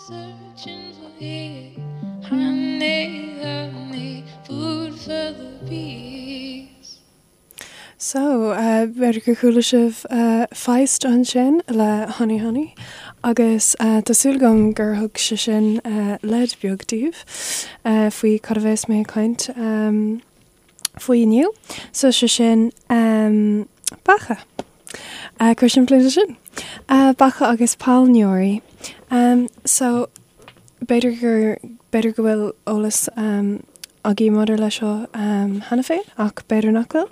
Searching for honey, honey, food for the bees. So, b'fhéidir gur chuala sibh Feist ansin le Honey Honey agus tá súil agam gur thug sé sin leid beag daoibh faoi cad a bheas mé ag caint faoi inniu. So, sé sin beacha. Chomh simplí le sin. Beacha agus pailneoirí. So, b'fhéidir gur, b'fhéidir go bhfuil eolas agaibh maidir leis seo cheana féin ach b'fhéidir nach bhfuil.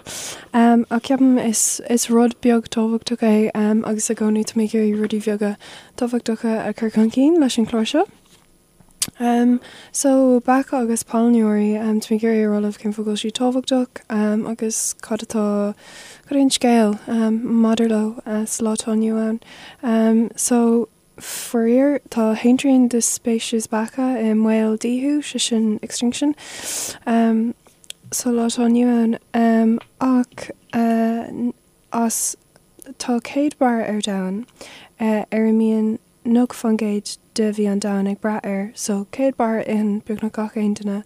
Ach ceapaim is, is rud beag tábhachtach é agus i gcónaí tá mé ag iarraidh rudaí beaga tábhachtacha a chur chun cinn leis an chlár seo. So, beacha agus pailneoirí, tá mé ag iarraidh a rá libh cén fáth go bhfuil siad tábhachtach agus cad atá, cad é an scéal maidir leo sa lá atá inniu ann. So, faraor, tá a haon trian de speicis beacha i mbaol díothú, sé sin extinction, sa lá atá inniu ann. Ach as, tá 100 barra ar domhan ar a mbíonn 90% de bhia an domhain ag brath air, so 100 barra itheann beagnach gach aon duine,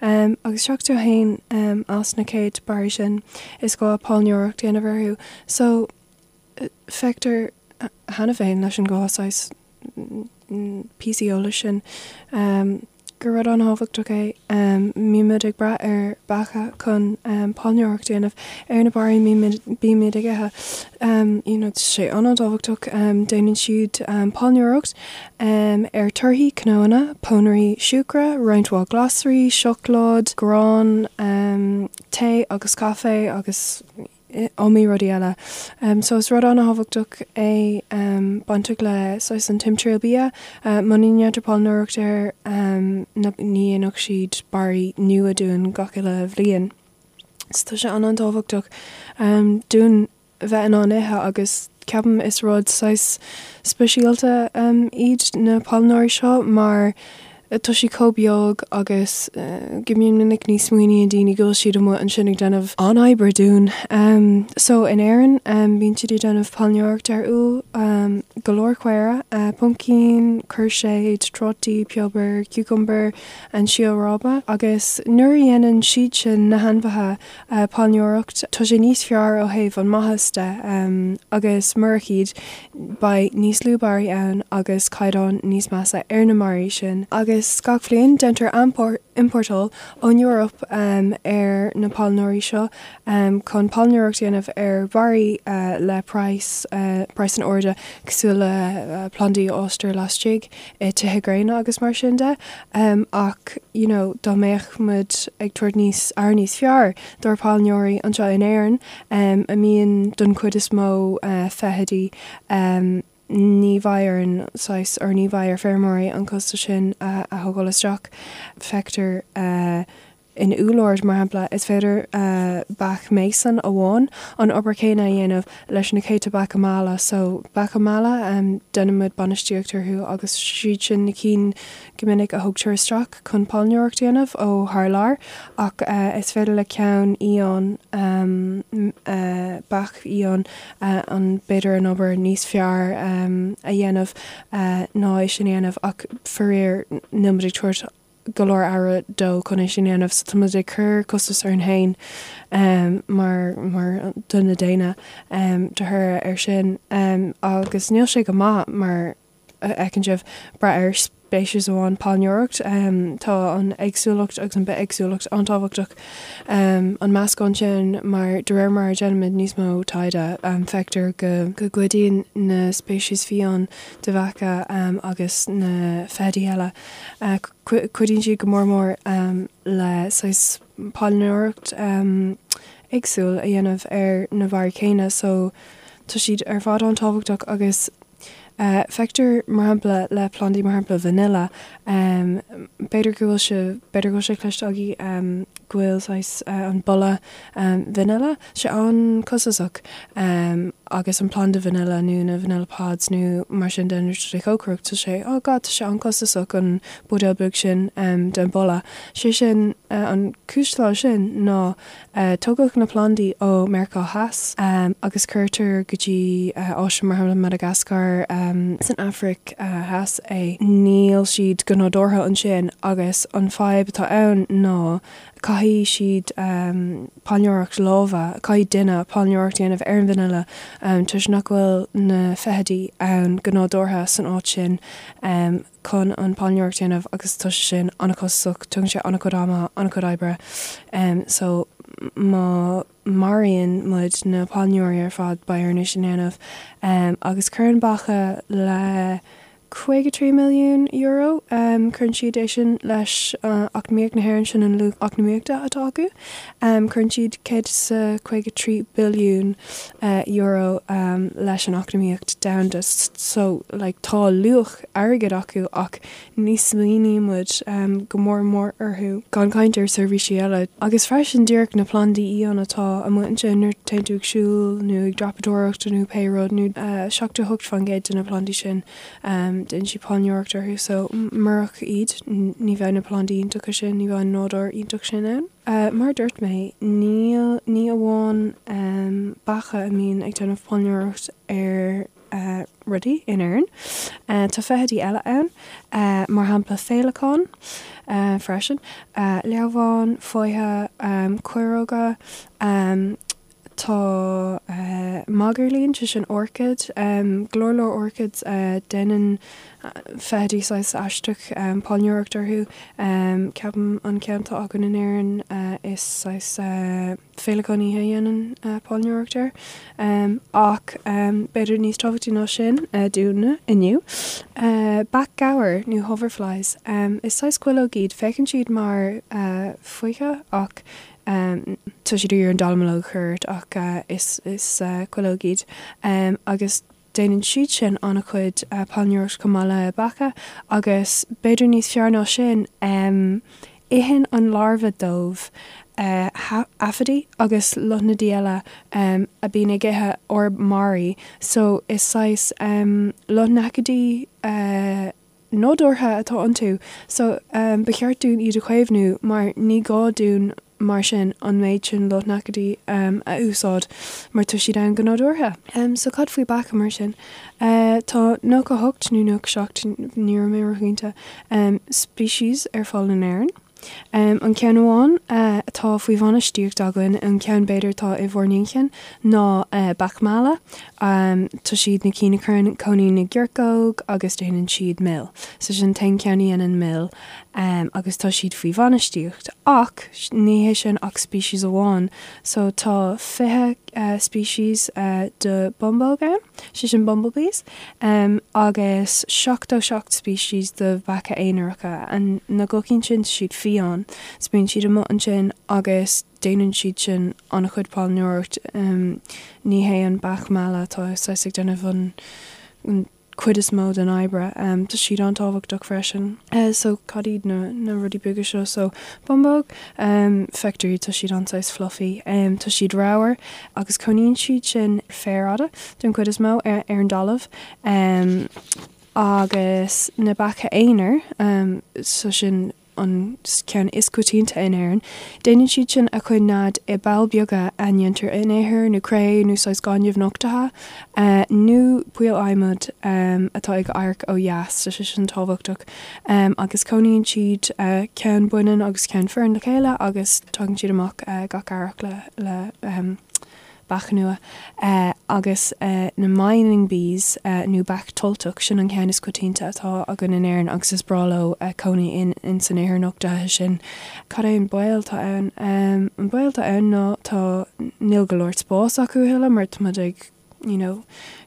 agus 71 as na 100 barraí sin is gá pailneoireacht a dhéanamh orthu, so feictear cheana féin leis an dhá saghas píosaí eolais sin. gur rud an-thábhachtach é. Bímid ag brath ar beacha chun pailneoireacht a dhéanamh ar na barraí a bímid ag ithe. You know, tá sé an-tábhachtach. Déanann siad pailneoireacht ar torthaí, cnónna, pónairí siúcra, roinnt mhaith glasraí, seacláid, grán, tae agus caife agus iomaí rudaí eile. So is rud an-thábhachtach é bainteach le saghas an timthriall bia. Muna ndéantar pailneoireacht air ní dhéanfadh siad barraí nua dúinn gach uile bhliain. So tá sé an-an-tábhachtach dúinn bheith in ann ithe agus ceapaim is rud saghas speisialta iad na pailneoirí seo mar Tá siad chomh beag agus go mion minic ní smaoiníonn daoine go bhfuil siad amuigh ansin ag déanamh an-obair dúinn. So in Éirinn bíonn siad ag déanamh pailneoireacht ar úll, go leor caora, pumpkin, cúirséid, trátaí, piobar, cucumber, an síol ráibe agus nuair a dhéanann siad sin, na hainmhithe, pailneoireacht, tá sé níos fearr ó thaobh an maitheas de agus murach iad beidh níos lú barraí ann agus caighdeán níos measa ar na mbarraí sin. Agus gach bhliain déantar iompórtáil ón Eoraip ar na pailneoirí seo chun pailneoireacht a dhéanamh ar bharraí le praghas, praghas an-ard cosúil le plandaí a fhástar laistigh i tithe gréine agus mar sin de ach you know dá mbeadh muid ag tabhairt níos aire níos fearr dár pailneoirí anseo in Éirinn a mbíonn don chuid is mó feithidí ní bheidh orainn saghas or ní bheidh ar feirmeoirí an costas sin a thógáil isteach. Feictear In úllord, mar shampla, is féidir beach mason amháin an obair chéanna a dhéanamh leis na céadta beacha meala. So, beacha meala, déanann muid bainistíocht orthu agus siad sin na cinn go minic a thugtar isteach chun pailneoireacht a dhéanamh ó thar lear ach is féidir le ceann fhiáin, beach fhiáin, an b'fhéidir an obair níos fearr a dhéanamh ná é sin a dhéanamh ach faraor níl muid ag tabhairt go leor aire dó chun é sin a dhéanamh so tá muid ag cur costas orainn féin mar mar duine daonna de thoradh air sin agus níl sé go maith mar a fheiceann sibh brath ar speiceas amháin pailneoireacht tá an éagsúlacht agus an bithéagsúlacht an-tábhachtach an meascán sin mar de réir mar a déanaimid níos mó taighde feictear go go gcuidíonn na speicis fiáin de bheacha agus na feithidí eile Cuidíonn siad go mór mór le saghas pailneoireacht éagsúil a dhéanamh ar na barraí céanna so tá siad ar fad an-tábhachtach agus feictear mar shampla le plandaí mar shampla vanilla b'fhéidir go bhfuil sé b'fhéidir go bhfuil sé cloiste agaibh go bhfuil saghas an boladh vanilla sé an-chostasach agus an planda vanilla nó na vanilla pods nó mar sin de nuair atá tú ag cócaireacht tá sé oh god tá sé an-chostasach an buidéal beag sin den boladh. Sé sin an cúis atá leis sin ná tógadh na plandaí ó Meiriceá Theas agus cuirtear go dtí áiteanna mar shampla Madagascar. san Afraic Theas é, níl siad go nádúrtha ansin agus an fadhb atá ann ná caithfidh siad pailneoireacht láimhe, caithfidh duine pailneoireacht a dhéanamh ar an bhfhine toisc nach bhfuil na feithidí ann go nádúrtha san áit sin chun an pailneoireacht a dhéanamh agus tá sé sin an-chostasach, tógann sé an-chuid ama, an-chuid oibre so má maraíonn muid na pailneoirí ar fad beidh orainn é sin a dhéanamh agus cuireann beacha le €53 milliún, cuireann siad é sin leis eacnamaíocht na hÉireann, sin an luach eacnamaíochta atá acu. Cuireann siad €153 billiún leis an eacnamaíocht domhanda. So, like, tá luach airgid acu ach ní smaoiníonn muid go mór mór orthu, gan caint ar seirbhísí eile. Agus freisin díreach na plandaí fhiáin atá amuigh ansin nuair a téann tú ag siúl nó ag dreapadóireacht nó pé rud nó 78% de na plandaí sin déanann siad pailneoireacht orthu so murach iad ní bheadh na plandaí iontacha sin, ní bheadh an nádúr iontach sin ann. Mar a dúirt mé, níl, ní amháin beacha a mbíonn ag déanamh pailneoireacht ar rudaí in Éirinn. Tá feithidí eile ann, mar shampla féileacáin freisin, leamháin, foiche, caoireoga, tá magairlín, sé sin orchid, go leor leor orchids, déanann feithidí saghas aisteach pailneoireacht orthu. Ceapaim an ceann atá againn in Éirinn is saghas. féileacán oíche a dhéanann pailneoireacht air. Ach b'fhéidir níos tábhachtaí ná sin dúinne inniu, beach ghabhair nó hoverflies. Is saghas cuileog iad. Féachann siad mar foiche ach tá siad ag iarraidh an dallamullóg a chur ort ach is cuileog iad. Agus Déanann siad sin an-chuid pailneoireacht chomh maith le beacha agus b'fhéidir níos fearr ná sin, itheann an larbha dóibh aifidí agus lotnaidí eile a bíonn ag ithe ár mbarraí so is saghas lotnaidicídí nádúrtha atá iontu so ba cheart dúinn iad a chaomhnú mar ní gá dúinn mar sin an méid sin lotnaidicídí a úsáid mar tá siad ann go nádúrtha. So cad faoi beacha mar sin? Tá 98 nó 97, ní raibh mé róchinnte, species ar fáil in Éirinn. An ceann amháin atá faoi bhainistíocht againn, an ceann b'fhéidir atá i bhur n-inchinn, ná beach meala. Tá siad na cinn a chuireann cóinín na gciorcóg agus déanann siad mil. So sin an t-aon cheann a dhéanann mil agus tá siad faoi bhainistíocht. Ach ní hé sin ach species amháin. So tá 20 species de bumbóg ann, sé sin bumblebees, agus 77 species de bheacha aonaracha. Na gucín sin, tá siad fiáin. So bíonn siad amuigh ansin agus déanann siad sin an-chuid pailneoireacht. Ní hé an beach meala atá saghas ag déanamh an cuid is mó den oibre. Tá siad an-tábhachtach freisin. So cad iad na rudaí beaga seo? So bumbóg, feictear iad, tá siad an-saghas fluffy. Tá siad ramhar agus cónaíonn siad sin féar fhada den chuid is mó ar an dtalamh. Agus na beacha aonair, so sin an ceann is coitianta in Éirinn. Déanann siad sin a chuid nead i bpoll beaga a ndéantar in ithir nó cré nó saghas gaineamh nochtaithe nó poill adhmaid atá ag amharc ó dheas, tá sé sin tábhachtach. Agus cónaíonn siad ceann baineann agus ceann fireann le chéile agus tagann siad amach gach earrach le beach nua, agus na mining bees nó beach tolltach, sin an ceann is coitianta atá againn in Éirinn agus is breá leo cónaí in san ithir nochtaithe sin. Cad é an baol atá ann? An baol atá ann ná tá, níl go leor spáis acu a thuilleadh mar tá muid ag you know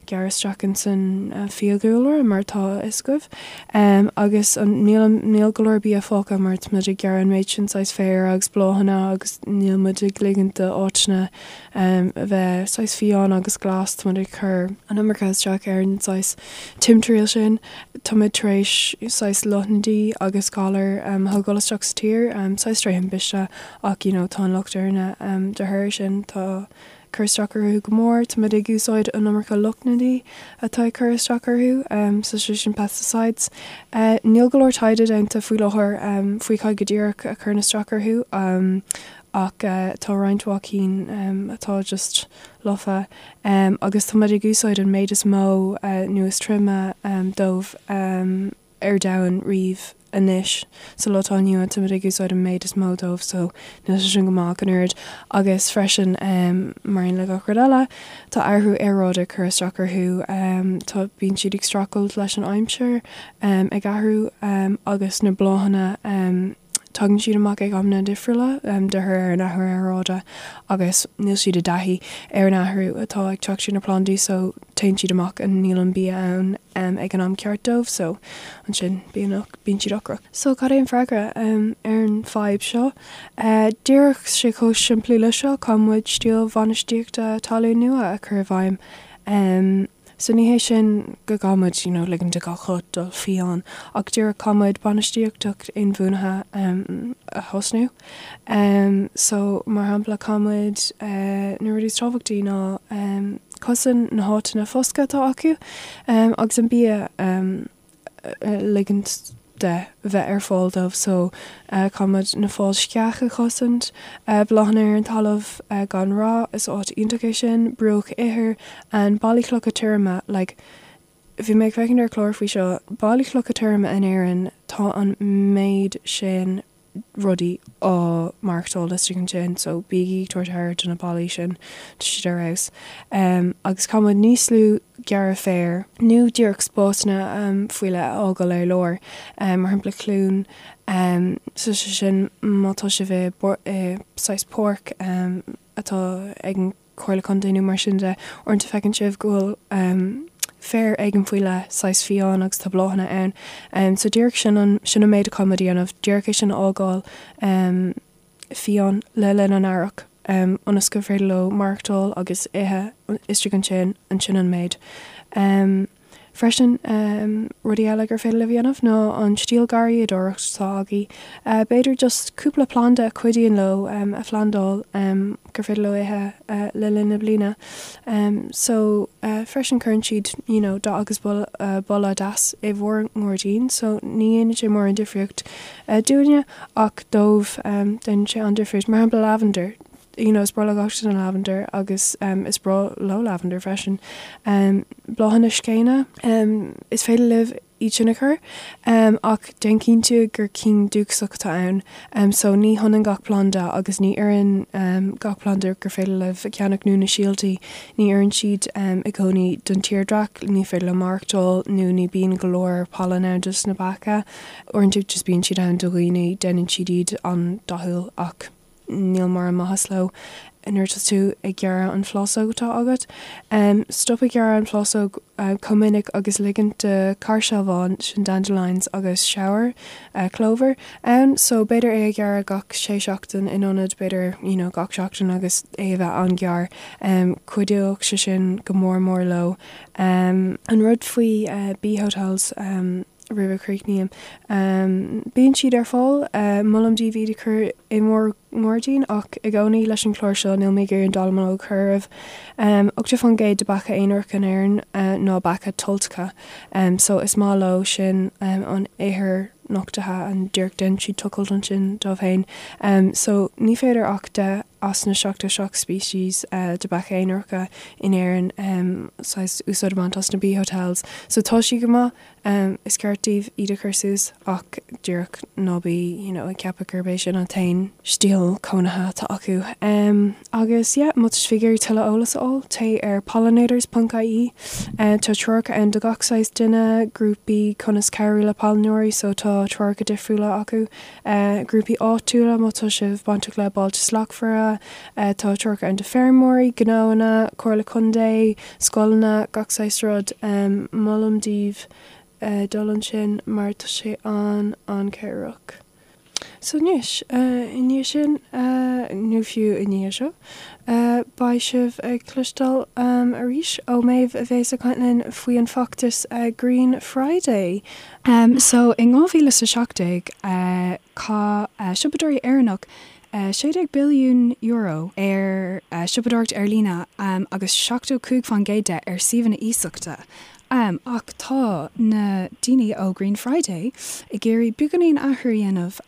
gearradh isteach in san fiadhúlra mar atá a fhios agaibh. Agus an, níl, níl go leor bia fágtha mar tá muid ag gearradh an méid sin saghas féir agus bláthanna agus níl muid ag ligint d'áiteanna a bheith saghas fiáin agus glas, tá muid ag cur an iomarca isteach ar an saghas timthriall sin. Tá muid tar éis saghas lotnaidí agus galair a thógáil isteach sa tír, saghas tré thimpiste ach you know tá an locht orainne de thoradh sin. Tá cur isteach orthu go mór. Tá muid ag úsáid an iomarca lotnaidí atá ag cur isteach orthu, so sé sin pesticides. Níl go leor taighde déanta faoi láthair faoi cad go díreach a chuireann isteach orthu. ach tá roinnt mhaith cinn atá just lofa agus tá muid ag úsáid an méid is mó nó is troime dóibh ar domhan riamh anois sa lá atá inniu ann, tá muid ag úsáid an méid is mó dóibh so níl sé sin go maith ach an oiread agus freisin mar aon le gach rud eile tá athrú aeráide ag cur isteach orthu tá bíonn siad ag streachailt leis an aimsir ag athrú agus na bláthanna Tagann siad amach ag amanna difriúla de thoradh ar an athrú aeráide agus níl siad i dtaithí ar an athrú atá ag teacht ar na plandaí so téann siad amach and níl an bia ann ag an am ceart dóibh so ansin bíonn bíonn siad ocrach. So cad é an freagra ar an fadhb seo? Díreach sé chomh simplí le seo, caithfidh muid stíl bhainistíochta talún nua a chur i bhfeidhm. So ní hé sin go gcaithfidh muid you know ligean do gach rud dul fiáin ach díreach caithfidh muid bainistíocht inbhuanaithe a thosnú. So mar shampla caithfidh muid na rudaí is tábhachtaí ná cosaint na háiteanna foscaidh atá acu agus an bia ligint de bheith ar fáil dóibh so caithfidh muid na fáil sceach a chosaint, bláthanna ar an talamh gan rá, is áit iontach é sin, bruach ithir and ballaí clocha tirime like bhí mé ag féachaint ar chlár faoi seo, ballaí clocha tirime in Éirinn tá an méid sin rudaí á maireachtáil istigh ansin so bígí ag tabhairt aire do na ballaí sin, tá siad ar fheabhas. Agus caithfidh muid níos lú gearradh féir nó díreach spásanna faoi leith a fhágáil ar lár, mar shampla cluain, so sé sin má tá sibh i saghas páirc atá ag an Comhairle Contae nó mar sin de, uaireanta feiceann sibh go bhfuil féar éigin faoi leith, saghas fiáin agus tá bláthanna ann. So díreach sin an, sin an méid a caithfidh muid a dhéanamh, díreach é sin a fhágáil fiáin le linn an earrach ionas gur féidir leo maireachtáil agus ithe istigh ansin, ansin an méid. Freisin, rudaí eile gur féidir libh a dhéanamh ná an stíl garraíodóireacht atá agaibh, b'fhéidir just cúpla planda a chuidíonn leo a phlandáil gur féidir leo ithe le linn na bliana. So, freisin cuireann siad you know dath agus boladh deas i bhur ngairdín so ní dhéanann sé mórán difríocht dúinne ach dóibh déanann sé an-difríocht. Mar shampla lavender, you know is breá le gach duine lavender agus is breá leo lavender freisin. Bláthanna scéine, is féidir libh iad sin a chur ach déan cinnte gur cinn dúchasach atá ann. So ní hionann gach planda agus ní oireann gach planda gur féidir libh a cheannach nó na síoltaí, ní oireann siad i gcónaí don tírdhreach, ní féidir leo maireachtáil nó ní bíonn go leor pailin ann dos na beacha. Uaireanta just bíonn siad ann do dhaoine, déanann siad iad an-dathúil ach. níl mórán maitheas leo nuair atá tú ag gearradh an phlásóg atá agat. Stop ag gearradh an phlásóg chomh minic agus ligint do cháirsealbhán, sin dandelions, agus shower, clover, ann. So b'fhéidir é a ghearradh gach sé seachtain in ionad b'fhéidir you know gach seachtain agus é a bheith an-ghearr. Cuideoidh sé sin go mór mór leo. An rud faoi bee hotels, roimh a chríochnaím. Bíonn siad ar fáil, molaim daoibh iad a chur i bhur ngairdín ach i gcónaí leis an chlár seo níl mé ag iarraidh an dallamullóg a chur oraibh. 80% de beacha aonaracha in Éirinn ná beacha toilteacha so is maith leo sin an ithir nochtaithe and díreach déanann siad tochailt ansin dóibh féin. So ní féidir ach 10 as na 77 species de beacha aonaracha in Éirinn saghas úsáid a bhaint as na bee hotels. So tá siad go maith. Is ceart daoibh iad a chur suas ach díreach ná bí you know ag ceapadh gurb é sin an t-aon stíl cónaithe atá acu. Agus yeah, má tá sibh ag iarraidh tuilleadh eolas a fháil, téigh ar pollinators ponc ie. Tá treoracha ann do gach saghas duine, grúpaí conas cabhrú le pailneoirí so tá treoracha difriúla acu, grúpaí áitiúla má tá sibh bainteach le Bailte Slachtmhara, tá treoracha ann do feirmeoirí, gnóanna, Comhairle Contae, scoileanna, gach saghas rud. Molaim daoibh dul ansin mar tá sé an-an-chabhrach. So anois, i ndiaidh sin, nó fiú i ndiaidh seo, beidh sibh ag cloisteáil arís ó Méabh a bhéas ag caint linn faoi an feachtas Green Friday. So in 2017, chaith siopadóirí Éireannach €16 billiún ar shiopadóireacht ar líne agus 75% de ar suíomhanna iasachta. Ach tá na daoine ó Green Friday ag iarraidh beagáinín athrú a dhéanamh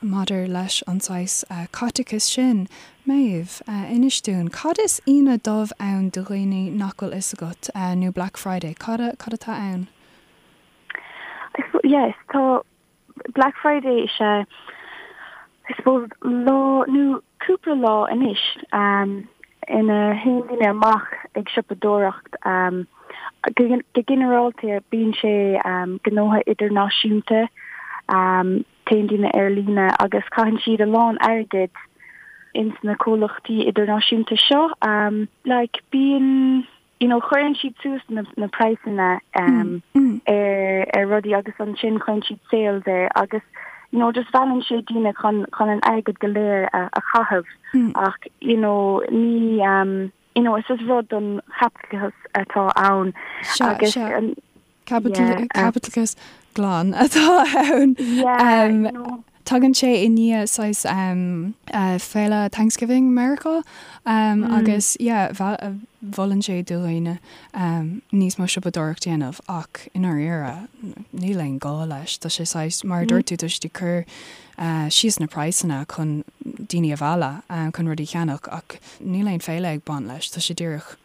maidir leis an saghas caiteachais sin. Méabh, inis dúinn, cad is Aoine Dubh ann do dhaoine nach bhfuil fhios agat, nó Black Friday, cad cad atá ann? Yes, tá Black Friday is ea, I suppose, lá nó cúpla lá anois ina théann daoine amach ag siopadóireacht. Go ginearálta bíonn sé gnótha idirnáisiúnta, téann daoine ar líne agus caitheann siad a lán airgid ins na comhlachtaí idirnáisiúnta seo. Like bíonn. you know cuireann siad suas na na praghsanna um ar ar rudaí agus ansin cuireann siad sales air agus you know just meallann sé daoine chun chun an airgead go léir a a chaitheamh ach you know ní um you know is is rud don chaipitleachas atá ann agus an Caipitleachas glan atá ann. Tagann sé i ndiaidh saghas féile Thanksgiving Meiriceá agus yeah mholann sé do dhaoine níos mó siopadóireacht a dhéanamh ach i ndáiríre níl aon gá leis. Tá sé saghas, mar a dúirt tú, tá siad ag cur síos na praghsanna chun daoine a mhealladh chun rudaí a cheannach ach níl aon féile ag baint leis. Tá sé díreach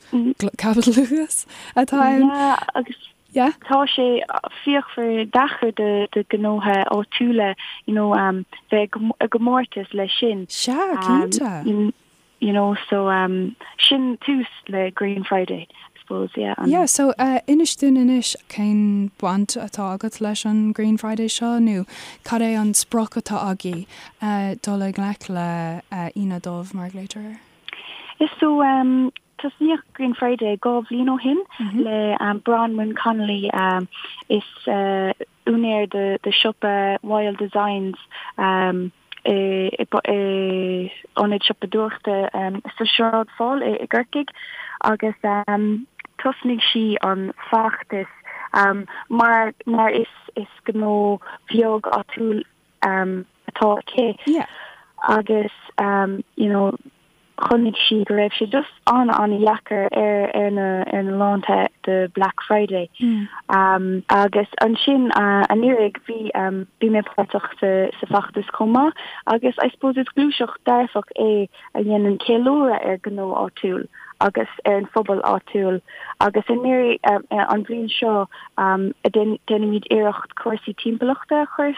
caipitleachas atá ann. Yeah, agus yeah. tá sé fíochmhar deacair do do gnótha áitiúla you know um, bheith i gcomórtas leis sin. Sea, cinnte. Um, you know, so um, sin tús le Green Friday, I suppose, yeah. Um, yeah, so uh, inis dúinn anois cén baint atá agat leis an Green Friday seo nó cad é an sprioc atá agaibh uh, dul i ngleic le uh, Aoine Dubh mar a ghlaoitear air? Is so um, Tosnaíodh Green Friday 2 bhliain ó shin le Bronwyn Connolly, is úinéir de siopa Wild Designs i ionad siopadóireachta sa Sráid Pháil i gCorcaigh agus thosnaigh sí an feachtas mar mar is gnó bheag áitiúil atá aici agus you know chonaic sí go raibh sé just an-an-dheacair ar ar na ar na laethanta de Black Friday. Agus ansin anuraidh bhí bhí mé páirteach sa sa feachtas chomh maith agus I suppose is gluaiseacht dearfach é a dhéanann ceiliúradh ar gnó áitiúil agus ar an phobal áitiúil agus anuraidh an bhliain seo déanaimid iarracht cúrsaí timpeallachta a chur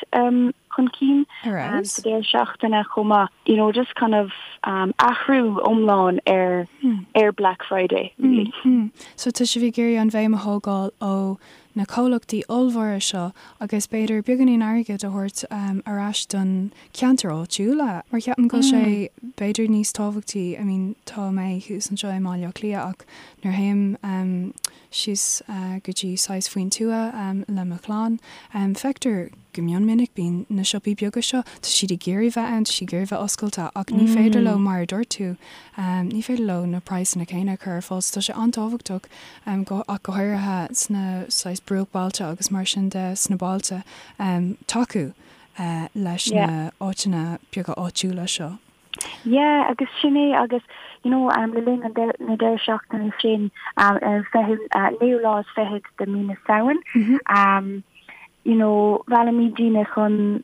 chun cinn sa deireadh seachtaine chomh maith. You know, just kind of athrú iomlán ar ar Black Friday, really. So tá sibh ag iarraidh an bhéim a thógáil ó na comhlachtaí ollmhóra seo agus b'fhéidir beagáinín airgid a thabhairt ar ais don ceantar áitiúla mar ceapaim go bhfuil sé b'fhéidir níos tábhachtaí, I mean tá mé thuas anseo i mBaile Átha Cliath ach nuair a théim síos go dtí saghas faoin tuath le mo chlann feictear go mion minic bíonn na siopaí beaga seo, tá siad ag iarraidh bheith ann, tá siad ag iarraidh bheith oscailte ach ní féidir leo mar a dúirt tú ní féidir leo na praghsanna céanna a chur ar fáil so tá sé an-tábhachtach ach go háirithe sna saghas bruachbailte agus mar sin de sna bailte tacú leis na áiteanna beaga áitiúla seo. Yeah, agus sin é agus you know um, le linn an na deireadh seachtaine sin um, ar an fichiú uh, naoú lá is fichead de mí na Samhain mm -hmm. um, you know, mheallaimid daoine chun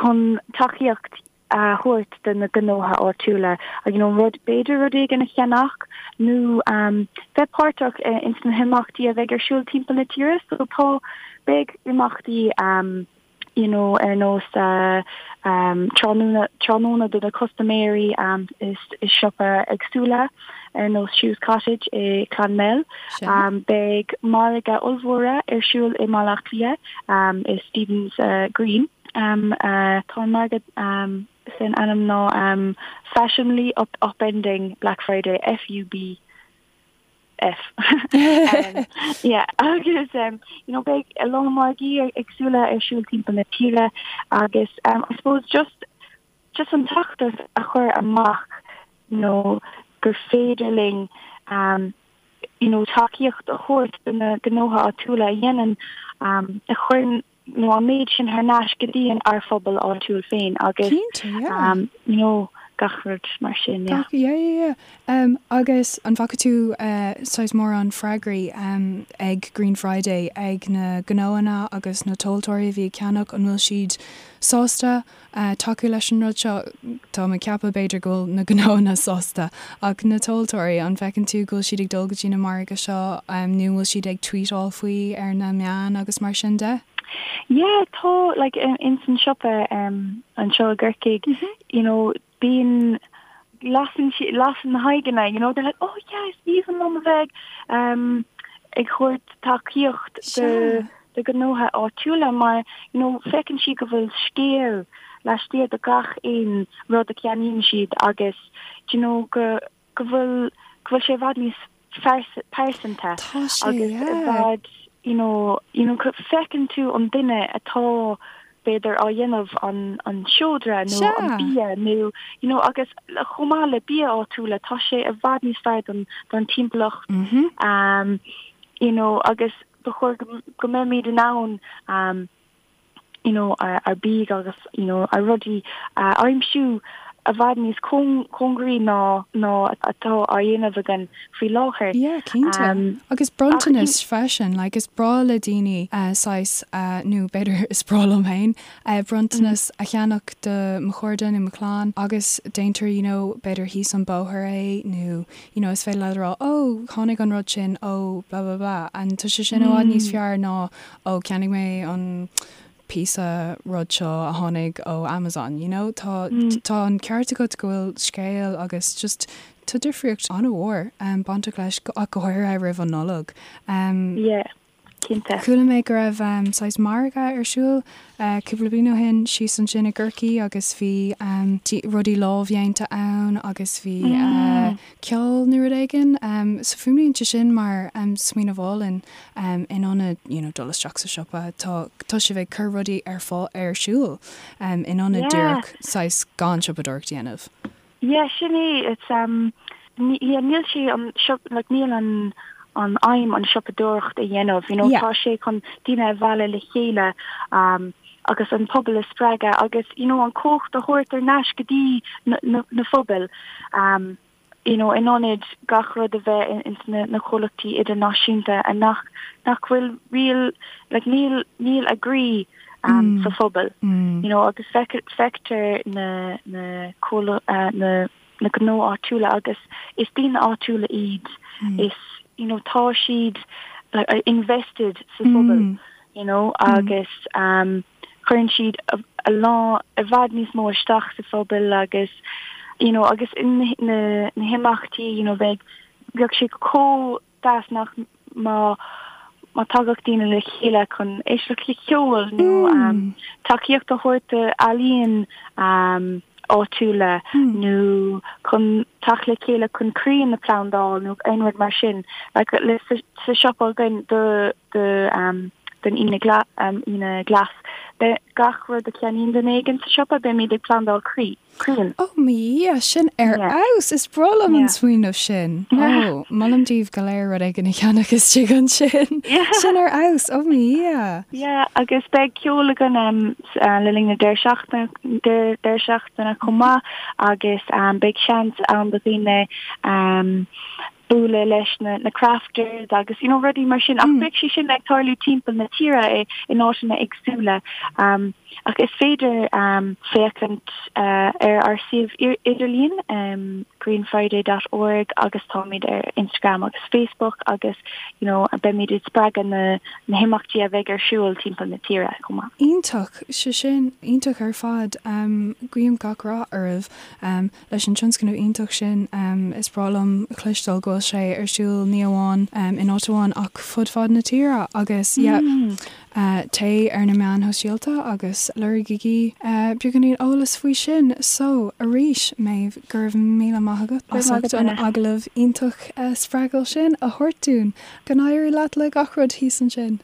chun tacaíocht a thabhairt do na gnótha áitiúla you know, rud b'fhéidir rud éigin a cheannach nó um, bheith páirteach ins na himeachtaí a bheidh ar siúl timpeall na tíre so tá beidh imeachtaí um, you know, ar nós tráthnóna, tráthnóna do na custaiméirí i siopa éagsúla ar nós Shoes Cottage i Clonmel. Beidh margadh ollmhóra ar siúl i mBaile Átha Cliath i Stephen's Green. Tá an margadh san ainm ná Fashionably Upending Black Friday, FUB. F. Yeah, agus um, you know, beidh a lán margaí éagsúla ar siúl timpeall na tíre agus um, I suppose just just an feachtas a chur amach you know, gur féidir linn um, you know, tacaíocht a thabhairt do na gnótha áitiúla a dhéanann um, a chuireann nó an méid sin thar n-ais go dtí an ár phobal áitiúil féin agus Cinnte, yeah. um, you know, Gach rud mar sin, yeah. Gach, yeah, yeah, yeah. Um, agus an bhfaca tú uh, saghas mórán freagraí um, ag Green Friday ag na gnóanna agus na tomhaltóirí a bhí ag ceannach, an bhfuil siad sásta uh, tacú leis an rud seo? Tá mé ag ceapadh b'fhéidir go bhfuil na gnóanna sásta, ach na tomhaltóirí, an bhfeiceann tú go bhfuil siad ag dul go dtí na margaidh seo um, nó an bhfuil siad ag tweetáil faoi ar na meáin agus mar sin de? Yeah, tá, like, in san siopa um, anseo i gCorcaigh, you know, bíonn, lasann si, lasann na haghaidheanna, you know, they're like, oh yeah, is aoibhinn liom a bheith um, ag thabhairt tacaíocht do, do ghnótha áitiúla mar, you know, feiceann siad go bhfuil scéal laistiar de gach aon rud a cheannaíonn siad agus, do you know, go, go bhfuil, go bhfuil sé i bhfad níos pearsanta agus i bhfad you know you know feiceann tú an duine atá b'fhéidir á dhéanamh an an seodra nó an bia nó you know agus chomh maith le bia áitiúla tá sé i bhfad níos fearr don don timpeallacht um you know agus ba chóir go go mbeimid in ann um you know, ár bia agus, you know, ár rudaí a aimsiú i bhfad níos cóngaraí ná ná atá á dhéanamh againn faoi láthair. Yeah, cinnte. Agus bronntanas freisin, like is breá le daoine saghas, nó b'fhéidir is breá liom féin, bronntanas a cheannach do mo chairde nó mo chlann agus déantar, you know, b'fhéidir thíos an bóthar é nó, you know, is féidir leat a rá, oh, tháinig an rud sin ó blah blah blah and tá sé sin i bhfad níos fearr ná ó cheannaigh mé an píosa rud seo a tháinig ó Amazon, you know? Tá, tá an ceart agat go bhfuil scéal agus just tá difríocht an-mhór bainteach leis, ach go háirithe roimh an Nollaig. Yeah, cinnte. Chuala mé go raibh saghas margadh ar siúl cúpla bliain ó shin síos ansin i gCorcaigh agus bhí rudaí lámhdhéanta ann agus bhí ceol nó rud éigin. So fuaimníonn sé sin mar smaoineamh álainn in ionad you know dul isteach sa siopa. Tá tá sibh ag cur rudaí ar fáil ar siúl in ionad díreach saghas gan siopadóireacht a dhéanamh. Yeah, sin é. It's um yeah, níl sé an shop like níl an an aidhm an siopadóireacht a dhéanamh, you know, tá sé chun daoine a mhealladh le chéile um agus an pobal a spreagadh agus you know an cumhacht a thabhairt ar ais go dtí na na na phobail um you know in ionad gach rud a bheith ins na na comhlachtaí idirnáisiúnta a nach nach bhfuil real like níl níl a gcroí um sa phobal you know agus feictear na na uh, na na gnó áitiúla agus is daoine áitiúla iad is you know tá siad like invested sa phobal you know agus um cuireann siad a lán i bhfad níos mó isteach sa phobal agus you know agus in na na himeachtaí you know bheadh bheadh sé chomh deas nach má má tagadh daoine le chéile chun éisteacht le ceol nó tacaíocht a thabhairt d'ealaíon áitiúla nó chun teacht le chéile chun crainn a phlandáil nó aon rud mar sin. Like le sa siopa againn do do don Aoine Aoine Glas beidh gach rud a cheannaíonn duine éigin sa siopa beimid ag plandáil croí. Crainn. Ó mo Dhia, sin ar fheabhas! Is breá liom an smaoineamh sin. Ó, molaim daoibh go léir rud éigin a cheannach istigh ansin. Sin ar fheabhas! Ó mo Dhia! Yeah, agus beidh ceol againn le linn na deireadh seachtaine chomh maith agus beidh seans ann do dhaoine bualadh leis na na crafters agus you know rudaí mar sin ach beidh sé sin ag tarlú timpeall na tíre i in áiteanna éagsúla um, ach is féidir um, féachaint uh, ar ár suíomh idirlíon um, greenfriday dot org agus táimid ar Instagram agus Facebook agus you know beimid ag spreagadh na na himeachtaí a bheidh ar siúl timpeall na tíre chomh maith. Iontach, sé sin iontach ar fad. Um, guím gach rath oraibh. Um, Leis an tionscnamh iontach sin, is breá liom a chloisteáil go bhfuil sé ar siúl ní amháin in áit amháin ach fud fad na tíre agus yeah téigh ar na meáin shóisialta agus lorgaigí beagáinín eolas faoi sin. So, arís, Méabh, go raibh míle maith agat as ucht an agallamh iontach spreagúil sin a thabhairt dúinn. Go n-éirí leat le gach rud thíos ansin.